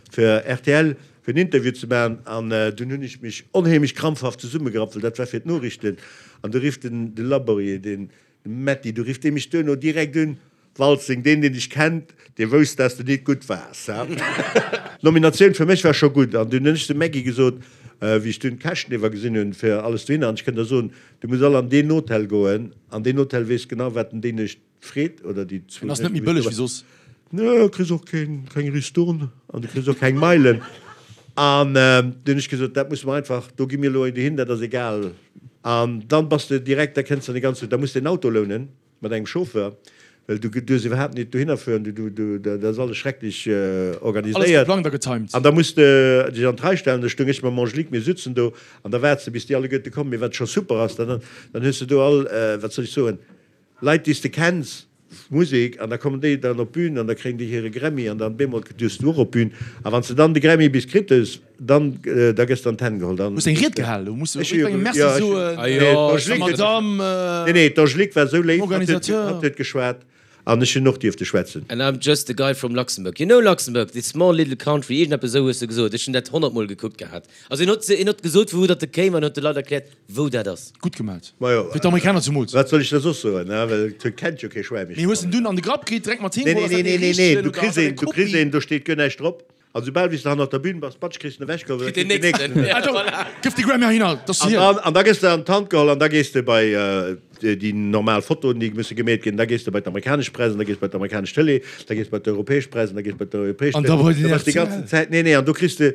fir rtl, fir en Interview ze maachen. An dunn hunn ech mech onheemlech krampfhaft zesummegerappt, well dat war fir d'Noriichten. An du rifft den de Laborier, deen Metty, du rifft dee mech duerno direkt un, Waltzing, deen deen dech kennt, dee wousst dass de nit gutt waars, ha? D'Nominatioun fir mech war scho gutt an dunn hunn ech dem Maggy gesot, wéi ech dunn d'Käschten iwwer gesinn hunn fir alles dohinner, an ech kënnt der soen, du muss all an deen Hotel goen, an deen Hotel weess genau wat en déi Nuecht freet oder déi zwou En ass net méi bëlleg wéi soss. Nö, kriss och keng Ristourne an du kriss och keng Meilen. An dunn hunn ech gesot, dat musse mer einfach, do gi mir elo dohin, dat ass egal. An dann bass de direkt, da kënns de an de ganze, da muss de en Auto lounen mat engem Chauffeur, well du duerfs iwwerhaapt nit dohinner fueren, du, du, du, dat ass alles schrecklech Alles organiséiert. geplangt a getimed. An da muss de dech an d'Rei stellen, da stoung ech mam Angelique, mir sutzen do an da waarts de bis déi alleguerte kommen. Mee wat scho super ass, dann, dann hues de do all, wat soll ech soen, Leit déi s de kenns, Musek, an da kommen déi dann op d'Bün an da kréien déi hire Grammy an dann bemol duerfs du och op d'Bün a wann s de dann de Grammy bis kritt hues, dann da gëss de an d'Hänn geholl, dann. Hues eng Ried gehal, do muss du Ech hu jo jiddwerengem Merci jo ech soen, nee der d'Angelique huet Madame, nee nee d'Angelique war esou dem léif, hatt huet Organisateur. hatt huet geschwat an ech hunn och dierfte schwätzen. And I'm just a guy from Luxembourg. You know Luxembourg, this small little country, iergendeppes esou hues de gesot. Ech hunn dat honnertmol gekuckt gehat. Also en huet en huet gesot vu wou datt e kéim an huet de Leit erkläert, wou dat ass. Gutt gemat. Majo, Fir d'Amerikaner zumools. wat soll ech da soss soen, ne? Well et kennt jo kee Schwäin méi. Mee hues en dunn an de Grapp kritt, direkt mat heem Nee, geholl? nee, Ass dat nee, dee nee, nee, richtegen du oder kriss ass dat een, eng du kriss Kopie? een, do steet guer näischt drop. An soubal wéi s de hannert der Bühn bass, batsch, kriss de en ewechgeholl, well da Kritt kritt deen den nächsten. nächsten. Ja, Ah, do voilà. gëff de Grammy heihinner, dat ass An hien. dann, an da gëss de an d'Hand geholl an da gees de bei déi normal Fotoen, déi musse gemeet ginn, da gees de bei d'amerikanesch Press an da gees bei d'amerikanesch Tëlee, da gees bei d'europäesch Press an da gees bei d'europäesch An da Tëlee. bei den Da bass déi rtl. ganzen Zäit, nee, nee, an do kriss de,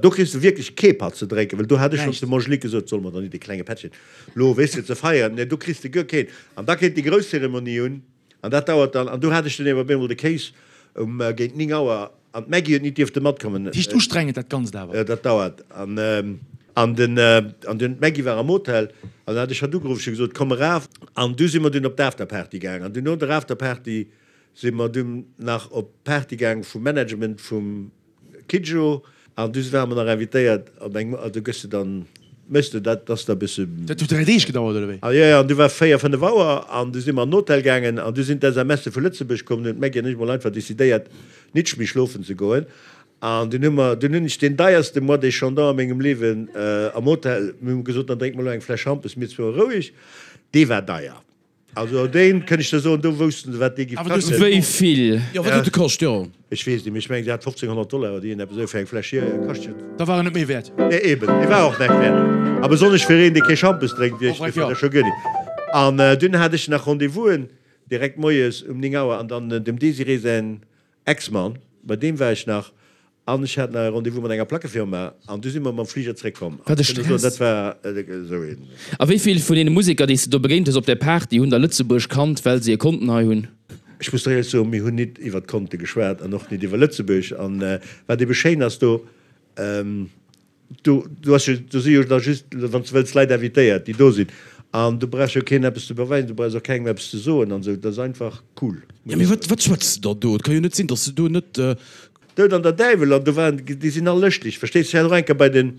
do kriss de wierklech kee Patt ze drénken, well do hat ech schonns Näischt. dem Angelique gesot, solle mer dann nit e klenge Pättchen lo, weess de, ze feieren, nee, do kriss de guer keen. An da kéint déi grouss Zeremonie un. An dat dauert dann, an do hat ech dunn ewer op eemol de Kéis um géint 9 Auer, an d'Maggy huet nit dierfte matkommen. Heescht ustrengend dat Ganzt awer. Dat dauert. An, an den, an dunn, d'Maggy war am Hotel, an dann hat ech hatt ugeruff, ech hu gesot, komm eraf. An du si mer dunn op d'Afterparty gaang, an dunn no der Afterparty si mer dunn nach op d'Party gaang vum Management vum. Kidjo, An du ware mer nach invitéiert op eng, a du gëss de dann, méchs de dat, dass der e bësse. Dat huet 3 Deeg gedauert, oder wéi? A jo, jo, an du war 4, 5 Auer an du si mer an den Hotel gaangen an du sinn d'SMSe vu Lëtzebuerg komm. Dunn hunn d'Maggy an ech mol einfach decidéiert, nitsch méi schlofen ze goen. An dunn hu mer, dunn hunn ech deen deierste Moët et Chandon a mengem Liewen am Hotel, mir hu gesot, dann drénke mer elo eng Fläsch Schampes, mir zwou a roueg. Dee war deier. Also deen, kënnt ech der soen, do woussten se wat dee giff kaschten. Wéi vill? Jo, wat huet e kascht, jo? Ech weess net, mee ech mengen se hat 1500 Dollar oder iergendeppes esou fir eng Fläsch hier kascht jo. Da war en net méi wäert. Nee, eben, dee war och näischt wäert. A besonnesch fir een, dee kee Schampes drénkt, wéi ech, dee fënnt dat scho guer nit. An dunn hat ech nach Rendez-vousen direkt moies um 9 Auer an dann dem Désirée säin Ex-Mann, bei deem war ech nach an ech hat nach e Rendez-vous mat enger Plackefirma an du si mer mam Fliger zréckkomm. Wat e Ech kënne soen, Stress! dat war esou een. A wéi vill vun deene Museker, déi s de do begéint hues op där Party, hunn da Lëtzebuerg kannt, well se e Konten hei hunn? Ech muss der éierlech soen, mir hunn nit iwwer d'Konte geschwat an och nit iwwer Lëtzebuerg. An wat ebe schéin ass do, Do, do ass jo, do si jo da just, wann s de wëlls, Leit invitéiert, déi do sinn. An du brauchs jo keen eppes ze beweisen, du brauchs och kengem eppes ze soen an esou. Dat ass einfach cool. Jo, mee wat, wat schwätz de dann do? Et ka jo net sinn, datt s de do net. Doud an der Däiwel an do waren, déi sinn all lëschteg, verstees de. Ech hat och eng Kéier bei den,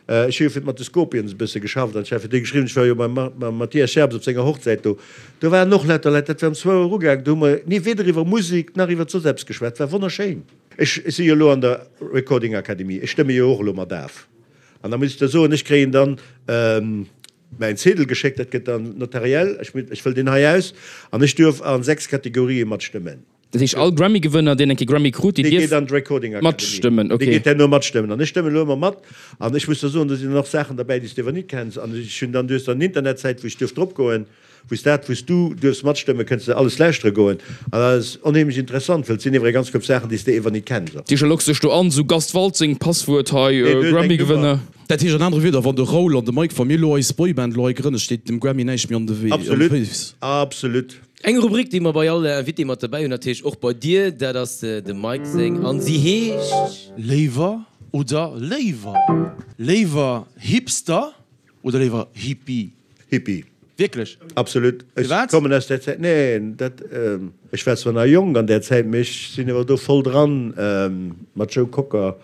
ech hu jo fir mat de Scorpions e bësse geschafft an ech hat fir déi geschriwwen, ech war jo beim mam Mathias Scherbs op senger Hochzäit do, do waren och lauter Leit, dat war um zwou Auer ugaangen, do hu mer ni weder iwwer Musek nach iwwer soss eppes geschwat, war wonnerschéin. Ech si jo elo an der Recording Akademie, ech stëmme jo och elo mat af. An da muss ech der soen, ech kréien dann mäin Zedel geschéckt, dat gëtt dann notariell, ech ech fëll deen hei aus an ech duerf a 6 Kategorië matstëmmen. Dat heescht, all Grammy-Gewënner, deen eng Kéier Grammy krut, deen Dee geet dierf an d'Recording Akademie. matstëmmen, Dee okay. geet herno matstëmmen. An ech stëmmen elo ëmmer mat. An ech muss der soen, do sinn dann och Saachen derbäi, déi s de ewer nit kenns. An ech hunn dann, du hues dann en Internetsäit, wou ech duerf dropgoen. Wou s dat, wou s du duerfs matstëmmen, kënns de alles lauschtere goen. An dat ass onheemlech interessant, wëll et sinn ewer eng ganz Koup Saachen, déi s de ewer nit kenns. Dat heescht, da logs dech do an, sou Gast Waltzing, Passwuert hei, Nee, du hues eng Grammy-Gewënner. Nummer. Dat heescht an anere Wierder, wann de Raoul an de Mike, wa mir elo eis Boyband elo hei grënnen, steet dem Grammy näischt méi an de Wee, an de Absolut, Féiss. absolut. Eng Rubrik, déi mer bei all Invité mat derbäi hunn, natierlech och bei dir, dat ass dem Mike seng an si heescht. Léiwer oder léiwer? Léiwer Hipster oder léiwer Hippie? Hippie. Wierklech? Absolut. Ech Firwat? kommen aus där Zäit. Neen, dat, ech war zwar nach jonk an där Zäit, mee ech sinn awer do voll dran mat Joe Cocker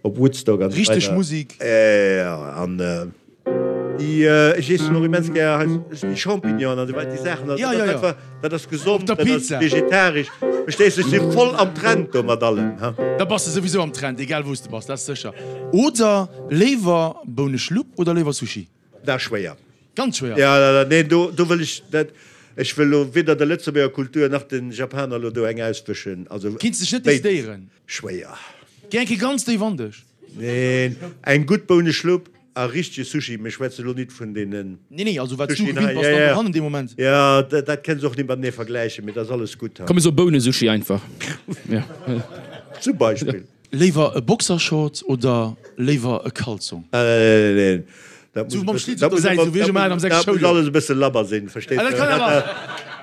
op Woodstock an esou Richteg weider. Musik. Jo, an déi, ech iessen och immens gär hei déi Champignonen an esou weider, déi Saachen. Also Ja, dat ja, ass ja. einfach, dat ass Op gesond, der dat ass Pizza. vegetaresch. Verstees du, ech si voll am Trend do mat allem, ha. Da bass de souwisou am Trend, egal wou s de bass, dat ass sécher. Oder léiwer Bouneschlupp oder léiwer Sushi? Dat ass schwéier. Ganz schwéier. Ja, ja, ja, nee, do, do wëll ech dat, ech wëll lo weder der Lëtzebuerger Kultur nach den Japaner lo do eng auswëschen. Also Kinns dech net béides. decidéieren. Schwéier. Géi eng Kéier ganz déif an dech. Neen, eng gutt Bouneschlupp a richtege Sushi, mir schwätze lo nit vun deenen Nee, nee, also wat s du Sushien gewinnt hei, bass, ja, dann ja, dohannen dee Moment. ja, dat, dat kënns och nit matenee vergläichen, mee dat ass alles gutt. Komm, mir soe Bounesushi einfach. Ja. Zum Beispill. Léiwer e Boxershort oder léiwer e Kalzong? Neen, dat Sou muss mam e Schlitz bëssen, op der Säit, sou wéi ech ëmmer hat am dat 6 muss Schouljoer. alles e bësse labber sinn, verstees Ah, de? dat kann awer.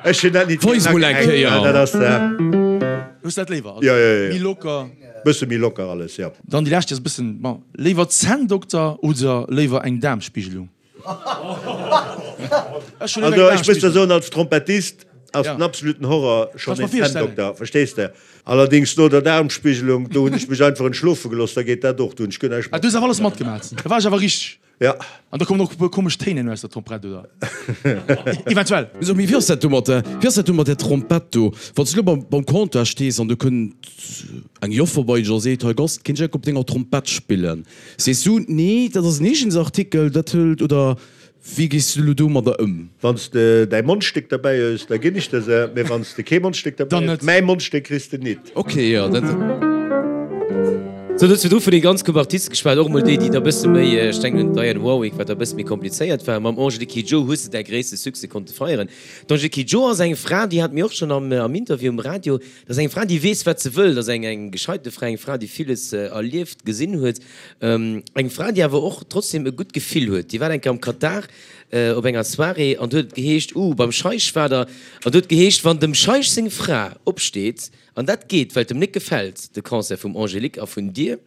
Ech hunn dat nit Weis mol eng Kéier. Dat ass da. Hues dat léiwer? Jo, jo, jo. Méi locker. Bësse méi locker alles, jo. Dann déi lescht, déi ass e bëssen, bon, léiwer Zänndokter oder léiwer eng Daarmspigelung? Also ech muss der soen, als Trompettist ass den absoluten Horror schonn een Zänndokter, verstees de? Allerdings no der Daarmspigelung, do hunn ech mech einfach entschlofe gelooss, da geet dat och, do hunn ech guer näischt Ah, du hues awer alles matgemat, da war ech awer richteg. Ja. An da kommen och e puer komesch Téin elo aus der Trompett, oder? Eventuell. So, mee wéi ass dat do mat der, wéi ass dat do mat der Trompett do? Wann s du elo beim, beim Comptoir stees an do kënnt eng Joffer bei dech a seet, Hei Gast, kéint ech enk op denger Trompett spillen? Sees du, nee, dat ass en Eegensartikel, dat hëlt, oder wéi gees du elo domadder ëm? Wann s de däi Mondstéck derbäi hues, da ginn ech der se, mee wann s de kee Mondstéck derbäi hues, mäi Mondstéck kriss de nit. Ok, jo, dat. Sou, du hues virdru vun den ganz groussen Artiste geschwat, och emol déi, déi da bësse méi, ech denken un d'Diane Warwick, wat da bësse méi komplizéiert war. Mam Angélique Kidjo hues de däi gréisste Succès konnte feieren. D'Angélique Kidjo ass eng Fra, déi hat mir och schonn am am Interview um Radio, dat ass eng Fra, déi weess, wat se wëll, dat ass eng eng gescheite Fra, eng Fra, déi villes erlieft, gesinn huet. Eng Fra, déi awer och trotzdem e gutt Gefill huet. Déi war eng Kéier am Katar op enger Soirée an do huet et geheescht, uh, beim Scheich war der, an do huet geheescht, wann dem Scheich seng Fra opsteet, an dat geet, well et em net gefält, de Concert vum Angélique a vun dir,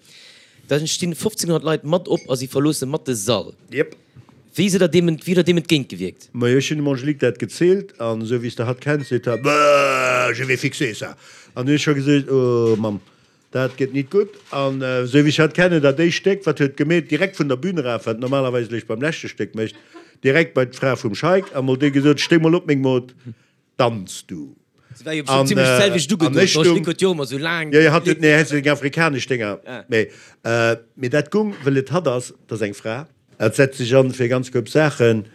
da stinn 1500 Leit mat op a si verloosse mat de Sall. Yep. Wéi sidd der deem, wéi hutt der deem entgéint gewierkt? Majo, ech hunn dem Angélique dat gezielt an esou wéi s de hatt kenns, seet hatt, Bäh, je vais fixer ça. An hunn ech scho gesot, oh Mamm, Dat gëtt nit gutt. An esou wéi ech hatt kennen, dat éischt Stéck, wat huet gemeet, direkt vun der Bühn eraf, wat normalerweis eréischt beim leschte Stéck mécht, direkt bei d'Fra vum Scheik a mol déi gesot, Stéi mol op, meng Mod, danz du. Se war jo bestimmt zimlech d'selwecht ugedoen, An ech d'Angelique stung, huet jo och ëmmer esou laang. Jo, jo, hatt huet, nee, hatt huet eng afrikanesch Dénger, mee, mee dat gung, wëll et hatt ass, 't ass eng Fra. Et setzt sech an fir ganz koup Saachen.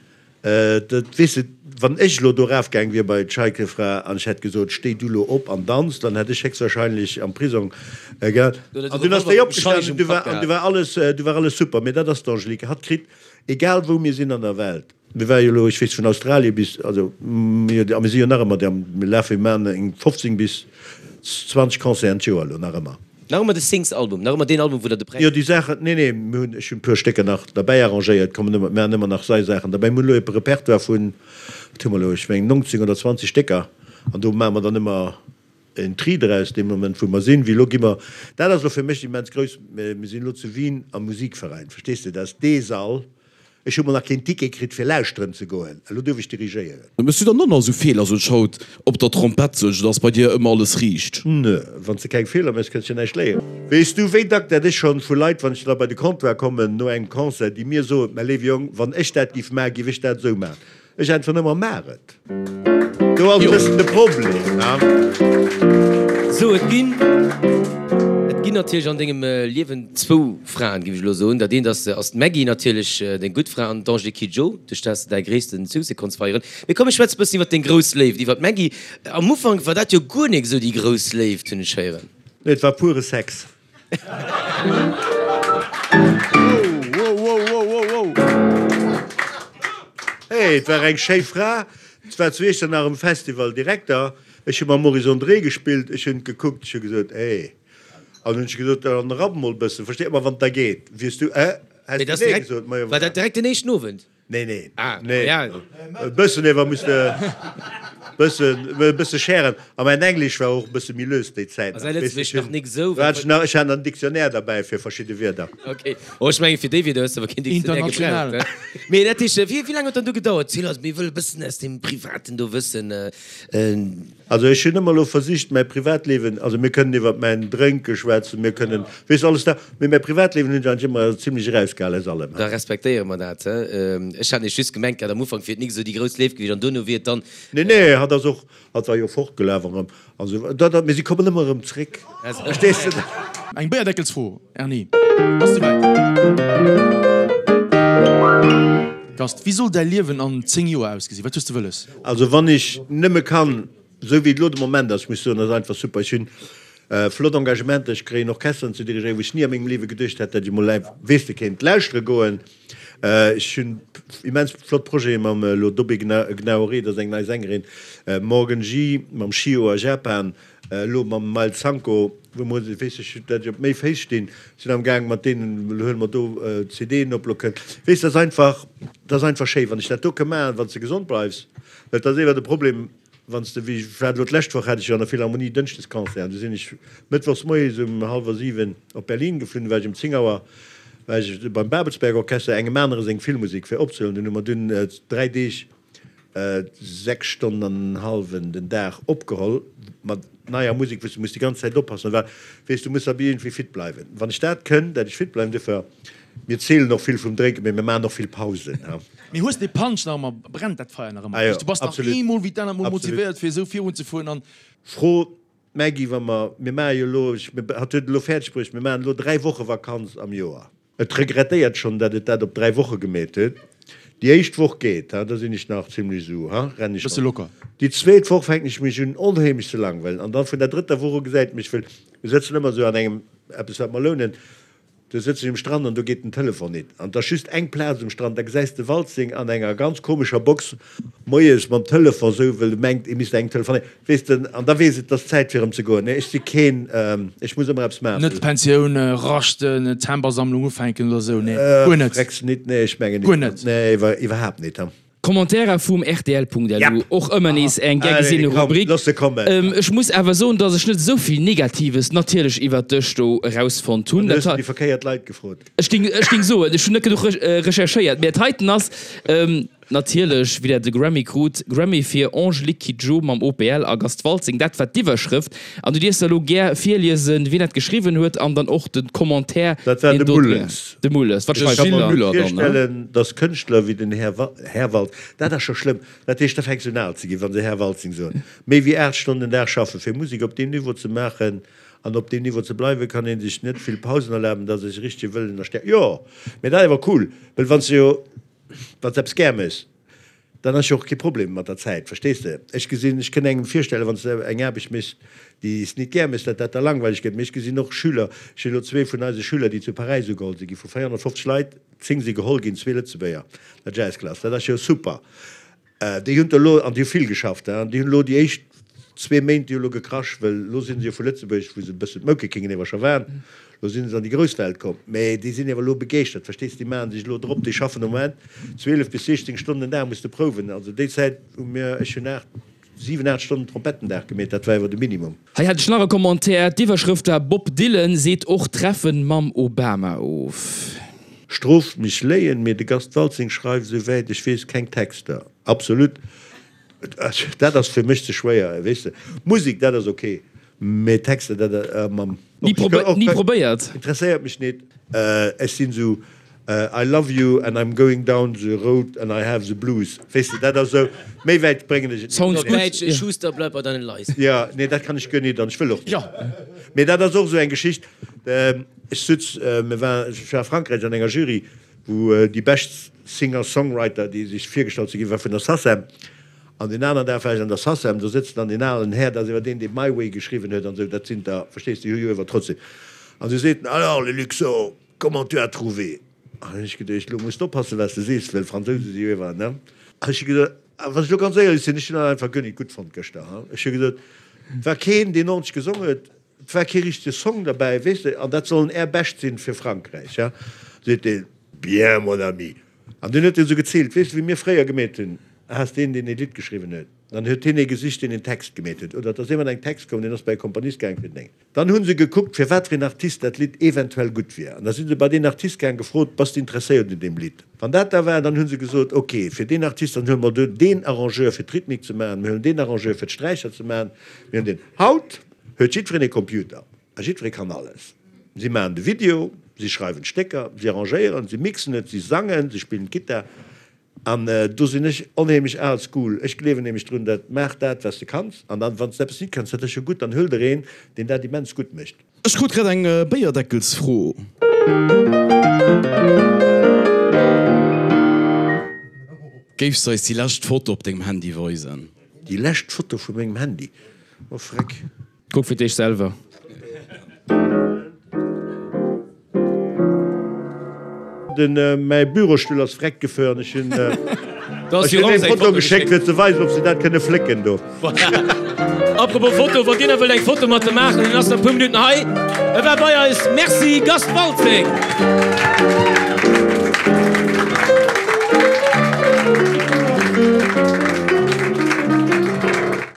Dat weess de, wann ech elo do erafgaang wier bei d'Scheikefra an ech hätt gesot, stéi du lo op an danz, dann hätt ech héchstwahrscheinlech am Prisong gehat. An dunn ass déi opgestanen an du war, an du war alles, du war alles super. Mee dat ass d'Angelique. Hatt kritt, egal wou mir sinn an der Welt, mir ware jo elo, ech weess, vun Australie bis, also mir, a mir si jo nach ëmmer, mir lafe, mir maachen eng 15 bis 20 Concerten d'Joer elo nach ëmmer. Nach ëmmer de Sings-Album, nach ëmmer deen Album, wou der de Präis. Jo, déi Saachen, nee, nee, mir hunn, ech hunn e puer Stécker nach derbäi arrangéiert, kommen ëmmer, maachen ëmmer nach sei Saachen derbäi. Mir hunn elo e Repertoire vun, wat hu mer elo, ech mengen 19 oder 20 Stécker an do maache mer dann ëmmer en Tri draus, dee Moment wou mer sinn. Wéi elo gi mer, dat ass elo fir mech immens grouss, mir sinn elo zu Wien am Musikverein, verstees de, dat ass dee Sall, Ech hu mol nach keen Ticket kritt fir lauschteren ze goen, elo duerf ech dirigéieren. Mëss du dann och nach esou Feeler, sou schaut op der Trompett sou, dass bei dir ëmmer alles riicht? Nö, wanns de keng Feeler mëss, kënns jo näischt léieren. Weess du wéi dack dat ech schonn vu Leit, wann ech da bei de Comptoir kommen no engem Concert, déi mir soen, mä léiwe Jong, wann ech dat giff maachen, giff ech dat esou maachen. Ech äntweren ëmmer, Maach et! Do ass e bëssen de Problem, ne? Sou, et ginn, et ginn natierlech an dengem Liewen zwou Fraen, géif ech elo soen. Dat eent ass, ass d'Maggy natierlech, deng gutt Fra, an d'Angélique Kidjo, duerch dat s de däi gréisste Succès konns feieren. Mee komm, ech schwätze e bëssen iwwer deng grouss Léift, iwwer d'Maggy. Am Ufank war dat jo guer nik esou déi grouss Léift, hunn ech héieren. Nee, et war pure Sex. Hey, et war eng schéi Fra. Et war zu Iechternach um Festival Direkter. Ech hu mam Maurice André gespillt. Ech hunn gekuckt, ech hu gesot, Hey. An hunn ech gesot, Dann rapp mol e bëssen. Versteet mer, wann et da geet. Wiers du, eh? Häss du nee gesot? Majo, War dat direkt den éischten Owend? Nee, nee. Ah, nee. Ja. E bëssen ewer muss de. Bëssen, e bësse schären. A mäin Englesch war och e bësse méi lös déi Zäit nach. Ass säi Lëtzebuergesch nach nik esou? Do hat ech nach, ech hat nach en Dictionnaire derbäi fir verschidde Wierder. Ok. Oh, ech mengen, fir déi Wierder hues de awer keen Dictionnaire International. gebraucht, ne? Mee dat heescht, wéi, wéi laang huet dann do gedauert? Ziel eis, mir wëlle bëssen aus deem Privaten do wëssen. Also ech hunn ëmmer elo versicht mäi Privatliewen, also mir kënnen iwwert mäin Drénke schwätzen, mir kënnen, weess de, alles dat, mee mäi Privatliewen hunn ech eigentlech ëmmer zimlech erausgehal aus allem. Da respektéiere mer dat. Ech hat nämlech just gemengt gehat am Ufank wier et nik esou déi grouss Léift gewiescht an duerno wier et dann. Nee, nee, hatt ass och, hatt war jo fortgelaf erëm an esou, dat, dat, mee si kommen ëmmer erëm zréck, verstees de? Eng Béierdeckelsfro, Erny, bass de wäit? Gast, wéi soll däi Liewen an 10 Joer ausgesinn? Wat hues de wëlles? Also wann ech nëmme kann, esou wéi et elo de Moment ass, ech muss soen, dat ass einfach super, ech hunn flott Engagementer, ech kréien Orchesteren ze dirigéieren, wou ech ni a mengem Liewe geduecht hätt, datt ech emol, weess de, kéint lauschtere goen. Ech hunn immens flott Projete mam elo Dobé Gnaoré, dat ass eng nei Sängerin, Morgan G mam Shio a Japan, Elo mam Miles Sanko, wou mer, weess ech, dat ech op méi Féiss stinn, sinn am Gaang mat deenen, elo huele mer do CDen op, elo kënnt, weess, dat ass einfach, dat ass einfach schéi, wann ech dat do ka maachen, wann s de gesond bleifs, well et ass ewer de Problem, wann s de, wéi ech war elo d'lescht Woch, hat ech jo an der Philharmonie Dënschdesconcert an du sinn ech mëttwochs moies um hallwer 7 op Berlin geflunn, du war ech um 10 Auer war ech beim Babelsberg Orchester, engem anere seng Filmmusek fir opzehuelen, dunn hu mer dunn 3 Deeg 6 Stonnen an en hallwen den Dag opgeholl mat neier Musek, wou s du muss déi ganz Zäit oppassen, well weess du muss awer iergendwéi fit bleiwen. Wann ech dat kënn, dat ech fit bleiwen, duerfir, mir zielen och vill vum Drénken, mee mir maachen och vill Pausen, ha. Mee hues de Punch nach ëmmer, brennt dat Feier nach ëmmer? Ah jo, Du bass nach absolut, eemol wéi d'anert mol absolut. motivéiert fir esou virunzefueren an. Fro d'Maggy, wa mer, mir maache jo elo, ech, hatt huet et elo fäerdeg bruecht, mir maachen elo 3 Woche Vakanz am Joer. Et regrettéiert schonn, datt et dat op 3 Woche gemeet huet. Déi éischt Woch geet, ha, da sinn ech nach zimlech esou, ha, renn ech Bësse mat. locker. Déi zweet Woch fänken ech mech un onheemlech ze langweilen an dann vun der drëtter Woch u gesäit mech, wëll mir sëtzen ëmmer esou an engem eppes wat mer lounen, do sëtz ech um Strand an do geet den Telefon nit an et ass just eng Plaz um Strand, da gesäis de Waltzing an enger ganz komescher Box moies mam Telefon esou, wëll e mengt e misst engem telefonéieren, weess de, an da weess et, et ass Zäit fir erëm ze goen. Nee, ech si keen, ech muss ëmmer eppes maachen. Net Pensioun, raschten, Tempersammlung ufänken oder esou, nee, guer net. Frecks nit, nee, ech mengen nit. Guer net. Nee, iwwer, iwwerhaapt nit. Kommentairer vum rtl.lu, och ëmmer nees eng gär Allez, gesinne komm, Rubrik. looss se kommen. Ech muss awer soen, dass ech net esou vill Negatives natierlech iwwert dech do erausfonnt hunn. Dann hues de déi verkéiert Leit gefrot. Ech géing, ech géing soen, ech hunn net genuch recherchéiert, mä et heiten ass, Natierlech, wéi dat de Grammy krut, Grammy fir Angélique Kidjo mam OPL a Gast Waltzing, dat war d'Iwwerschrëft. An du dierfs der elo gär virliesen, wien dat geschriwwen huet an dann och de Commentaire, Dat war deen de do dran. Mulles. De Mulles, wat Ech schreift ka en mer da? Müller dann, ne? virstellen, dass Kënschtler wéi den Här Här Walt, dat ass scho schlëmm, dat heescht, da fänks du un al ze ginn, wa se Här Waltzing soen, méi wéi 8 Stonnen den Dag schaffen, fir Musek op deem Niveau ze maachen an op deem Niveau ze bleiwen, kann ee sech net vill Pausen erlaben, dat ass e richtege Wëllen a Stärkt. Jo, mä dat ass awer cool, well wann s de jo Wann s de eppes gär méchs, dann ass jo och kee Problem mat der Zäit, verstees de? Ech gesinn, ech kënn engem virstellen, wann s de eng Aarbecht méchs, déi s nit gär méchs, datt dat da langweileg gëtt. Mee ech gesinn och Schüler, ech hunn elo zwee vun eise Schüler, déi zu Paräis ugeholl si gi, vu 450 Leit, 10 si geholl ginn, zwee Lëtzebuerger, der Jazzklass, dat ass jo super. Déi hunn elo, an déi hu vill geschafft, an déi hunn elo déi éischt zwee Méint, déi hu elo gekrasch, well elo si se jo vu Lëtzebuerg, wou se e bëssen d'Moukekengen ewer scho waren, elo si se an déi grouss Welt komm. Mä déi sinn ewer elo begeeschtert, verstees de, déi maache sech elo drop, déi schaffen am Moment 12 bis 16 Stonnen den Dag muss de prouwen. Also déi Zäit hu mir, ech hunn 8, 7, 8 Stonnen Trompett den Dag gemeet, dat war ewer de Minimum. Hei hat ech nach e Commentaire, d'Iwwerschrëft war Bob Dylan seet och Treffen mam Obama of. Stroft mech léien, mee de Gast Waltzing schreift esou wäit ech weess keng Texter. Absolut, dat ass fir mech ze schwéier, weess de. Musek, dat ass ok, mee Texter, dat mam. Ni probéiert? Interesséiert mech nit. Ech sinn esou I love you and I'm going down the road and I have the blues. Weess de, dat ass esou, méi wäit bréngen ech et nit. Sounds Op good. Däitsch, Schuster, bleib bei deinen Leisten. Jo, nee, dat kann ech guer nit an ech wëll och nit. Mee dat ass och esou eng Geschicht. Ech sutz, mir war, ech war a Frankräich an enger Jury, wou déi bescht Singer-Songwriter, déi sech virgestallt si ginn, war vun der SACEM. An deen aneren Dag war ech an der SACEM, do sëtzt dann deen alen Här, dat ass iwwer deen, dee My Way geschriwwen huet an esou, dat sinn der, verstees de, déi hu jo iwwer trotzdem. An du seet en, Alors, le Luxo, Comment tu as trouvé? An hunn ech geduecht, elo muss d'oppassen, wat s de sees, well Fransouse si jo iwwer, ne? An ech hu gesot, a wann ech elo ganz éierlech sinn, ech hunn dat einfach guer nit gutt fonnt gëschter, ha. Ech hu gesot, et war keen, deen ordentlech gesongen huet, et war kee richtege Song derbäi, weess de, an dat sollen är Bescht sinn fir Frankräich, ha. Seet deen, Bien, mon ami. An dunn huet en esou geziilt, weess de, wéi mir fréier gemeet hunn. Has deen, deen ee Lidd geschriwwen huet, dann huet hien ee gesicht, deen een Text gemeet huet, oder et ass ee mat engem Text komm, deen ass bei e Komponist gaang fir den Déngen. Dann hu se gekuckt, fir wat fir een Artist dat Lidd eventuell gutt wier, an da si se bei deen Artist gaang, gefrot, Bass de interesséiert un deem Lidd? Wann dat da war, dann hu se gesot, Ok, fir deen Artist, dann huele mer do deen Arrangeur fir d'Rhythmik ze maachen, mir huelen deen Arrangeur fir d'Sträicher ze maachen, mir hunn deen. Haut huet jiddwereen e Computer a jiddweree kann alles. Si maachen de Video, si schreiwen d'Stécker, si arrangéieren, si mixen et, si sangen, si spillen d'Gittar. An do sinn ech onheemlech al school. Ech gleewen nämlech drun, dat maach dat, wat s de kanns, an dann, wann s de eppes nit kanns, dat ass jo gutt, dann huel der een, deen dat immens gutt mécht. Ech krut grad eng Béierdeckelsfro. Géifs de eis déi lescht Foto op dengem Handy weisen? Déi lescht Foto vu mengem Handy? Oh freck. Kuck fir d'éischt selwer. Den mäi Bürostull ass vreckt gefuer an ech hunn ech hunn eng Foto geschéckt fir ze weisen ob se dat kënne flécken do. Apropos Foto, wann dir nach wëllt eng Foto mat em maachen, en ass nach e puer Minutten hei. E war bei eis. Merci Gast Waltzing.